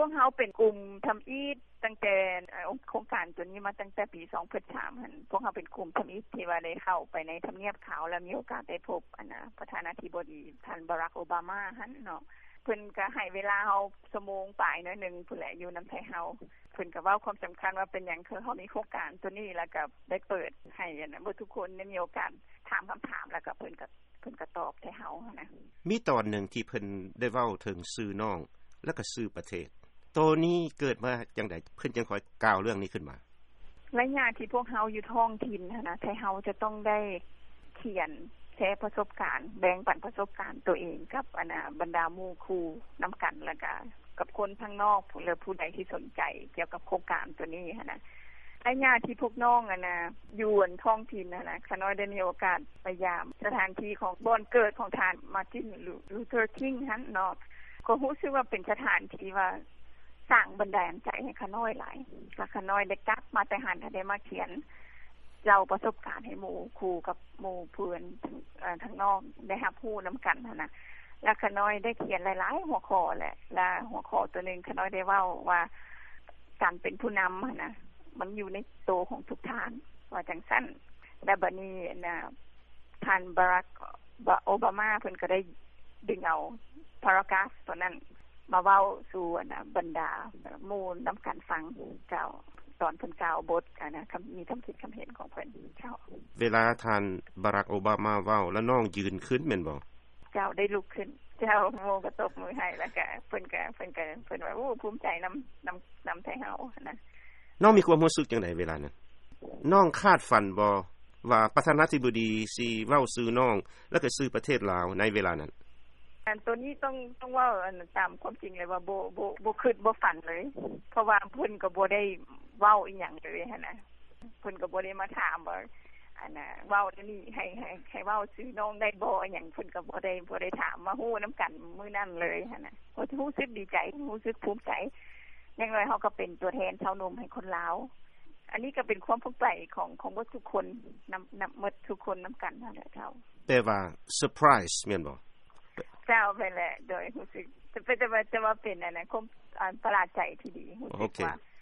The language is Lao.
ພວກເຮົາເປັນກຸ່ມທຳອິດ ຕັ້ງແຕ່ໂຄງການໂຕນີ້ມາຕັ້ງແຕ່ປີສອງພັນສາມຫັ້ນ ພວກເຮົາເປັນກຸ່ມທຳອິດທີ່ວ່າໄດ້ເຂົ້າໄປໃນທຳນຽບຂາວ ແລະມີໂອກາດໄດ້ພົບອັນນ່າປະທານາທິບໍດີທ່ານບາຣັກໂອບາມາຫັ້ນເນາະ. ເພິ່ນກໍໃຫ້ເວລາເຮົາຊົ່ວໂມງປາຍໜ້ອຍໜຶ່ງພຸ້ນແຫຼະ ຢູ່ນຳໄທເຮົາ. ເພິ່ນກໍເວົ້າຄວາມສຳຄັນວ່າເປັນຫຍັງຄືເຮົາມີໂຄງການໂຕນີ້ ແລ້ວກໍໄດ້ເປີດໃຫ້ອັນນ່າເບິດທຸກຄົນໄດ້ມີໂອກາດຖາມຄຳຖາມ ແລ້ວກໍເພິ່ນກໍ ເພິ່ນກໍຕອບໃຫ້ເຮົາຫັ້ນນະ. ມີຕອນໜຶ່ງທີ່ເພິ່ນໄດ້ເວົ້າເຖິງຊື່ນ້ອງ ແລ້ວກໍຊື່ປະເທດ. ໂຕນີ້ເກີດມາຈັ່ງໃດ ເພິ່ນຈຶ່ງຄ່ອຍກ່າວເລື່ອງນີ້ຂຶ້ນມາ? ໄລຍະທີ່ພວກເຮົາຢູ່ທ້ອງຖິ່ນຫັ້ນນະ ໄທເຮົາຈະຕ້ອງໄດ້ຂຽນແຊປະສົບການ ແບ່ງປັນປະສົບການໂຕເອງກັບອັນນ່າບັນດາໝູ່ຄູ່ນຳກັນ ແລ້ວກະກັບຄົນທາງນອກ ແລະຜູ້ໃດທີ່ສົນໃຈກ່ຽວກັບໂຄງການໂຕນີ້ຫັ້ນນະ. ໄລຍະທີ່ພວກນ້ອງອັນນ່າຢູ່ອັນທ້ອງຖິ່ນຫັ້ນນະ ຂ້ານ້ອຍໄດ້ມີໂອກາດໄປຢາມສະຖານທີ່ຂອງບ່ອນເກີດຂອງທ່ານ Martin Luther King ຫັ້ນເນາະ ກໍຮູ້ສຶກວ່າເປັນສະຖານທີ່ວ່າສ້າງບັນດານໃຈໃຫ້ຂ້ານ້ອຍຫຼາຍ ແລ້ວຂ້ານ້ອຍໄດ້ກັບມາແຕ່ຫັ້ນ ແລ້ວໄດ້ມາຂຽນເລົ່າປະສົບການໃຫ້ໝູ່ຄູ່ກັບໝູ່ເພື່ອນທາງນອກໄດ້ຮັບຮູ້ນຳກັນຫັ້ນນະ. ແລ້ວຂ້ານ້ອຍໄດ້ຂຽນຫຼາຍໆຫົວຂໍ້ແຫຼະ ແລະຫົວຂໍ້ໂຕໜຶ່ງຂ້ານ້ອຍໄດ້ເວົ້າວ່າ ການເປັນຜູ້ນຳຫັ້ນນະ ມັນຢູ່ໃນໂຕຂອງທຸກທ່ານ ວ່າຈັ່ງຊັ້ນ. ແລະບາດນີ້ອັນນ່າທ່ານບາຣັກໂອບາມາ ເພິ່ນກໍໄດ້ດຶງເອົາ paragraph ໂຕນັ້ນມາເວົ້າສູ່ອັນນ່າບັນດາໝູ່ນຳກັນຟັງເຈົ້າ ຕອນເພິ່ນກ່າວບົດອັນນ່າ ຄຳ ມີຄຳຄິດຄຳເຫັນຂອງເພິ່ນເຈົ້າ. ເວລາທ່ານບາຣັກໂອບາມາເວົ້າ ແລ້ວນ້ອງຢືນຂຶ້ນແມ່ນບໍ່? ເຈົ້າ ໄດ້ລຸກຂຶ້ນເຈົ້າ ໝູ່ກໍຕົບມືໃຫ້ ແລ້ວກະເພິ່ນກະ ເພິ່ນກະ ເພິ່ນວ່າ ໂອ້ ພູມໃຈນຳ ນຳ ນຳໄທເຮົາຫັ້ນນະ. ນ້ອງມີຄວາມຮູ້ສຶກຈັ່ງໃດເວລານັ້ນ? ນ້ອງຄາດຝັນບໍ່ວ່າປະທານາທິບໍດີຊິເວົ້າຊື່ນ້ອງ ແລ້ວກໍຊື່ປະເທດລາວໃນເວລານັ້ນ? ອັນໂຕນີ້ຕ້ອງ ຕ້ອງເວົ້າອັນຕາມຄວາມຈິງເລີຍວ່າ ບໍ່ ບໍ່ ບໍ່ຄິດບໍ່ຝັນເລີຍ ເພາະວ່າເພິ່ນກໍບໍ່ໄດ້ເວົ້າອີ່ຫຍັງເລີຍຫັ້ນນະ. ເພິ່ນກໍບໍ່ໄດ້ມາຖາມວ່າ ອັນນ່າ ເວົ້າແນວນີ້ ໃຫ້ ໃຫ້ ໃຫ້ເວົ້າຊື່ນ້ອງໄດ້ບໍ່ ອີ່ຫຍັງ ເພິ່ນກໍບໍ່ໄດ້ ບໍ່ໄດ້ຖາມ ມາຮູ້ນຳກັນມື້ນັ້ນເລີຍຫັ້ນນະ. ກໍຮູ້ສຶກດີໃຈ ຮູ້ສຶກພູມໃຈ ຢ່າງໜ້ອຍເຮົາກໍເປັນຕົວແທນຊາວໜຸ່ມໃຫ້ຄົນລາວ. ອັນນີ້ກໍເປັນຄວາມພູມໃຈຂອງ ຂອງເບິດທຸກຄົນ ນຳ ນຳເບິດທຸກຄົນນຳກັນຫັ້ນແຫຼະເຈົ້າ. ແປວ່າ surprise ແມ່ນບໍ່? ເຈົ້າ ແມ່ນແຫຼະ ໂດຍຮູ້ສຶກ ແຕ່ ແຕ່ວ່າ ແຕ່ວ່າເປັນອັນນັ້ນ ຄວາມ ອັນ ປະຫຼາດໃຈທີ່ດີ ຮູ້ສຶກວ່າ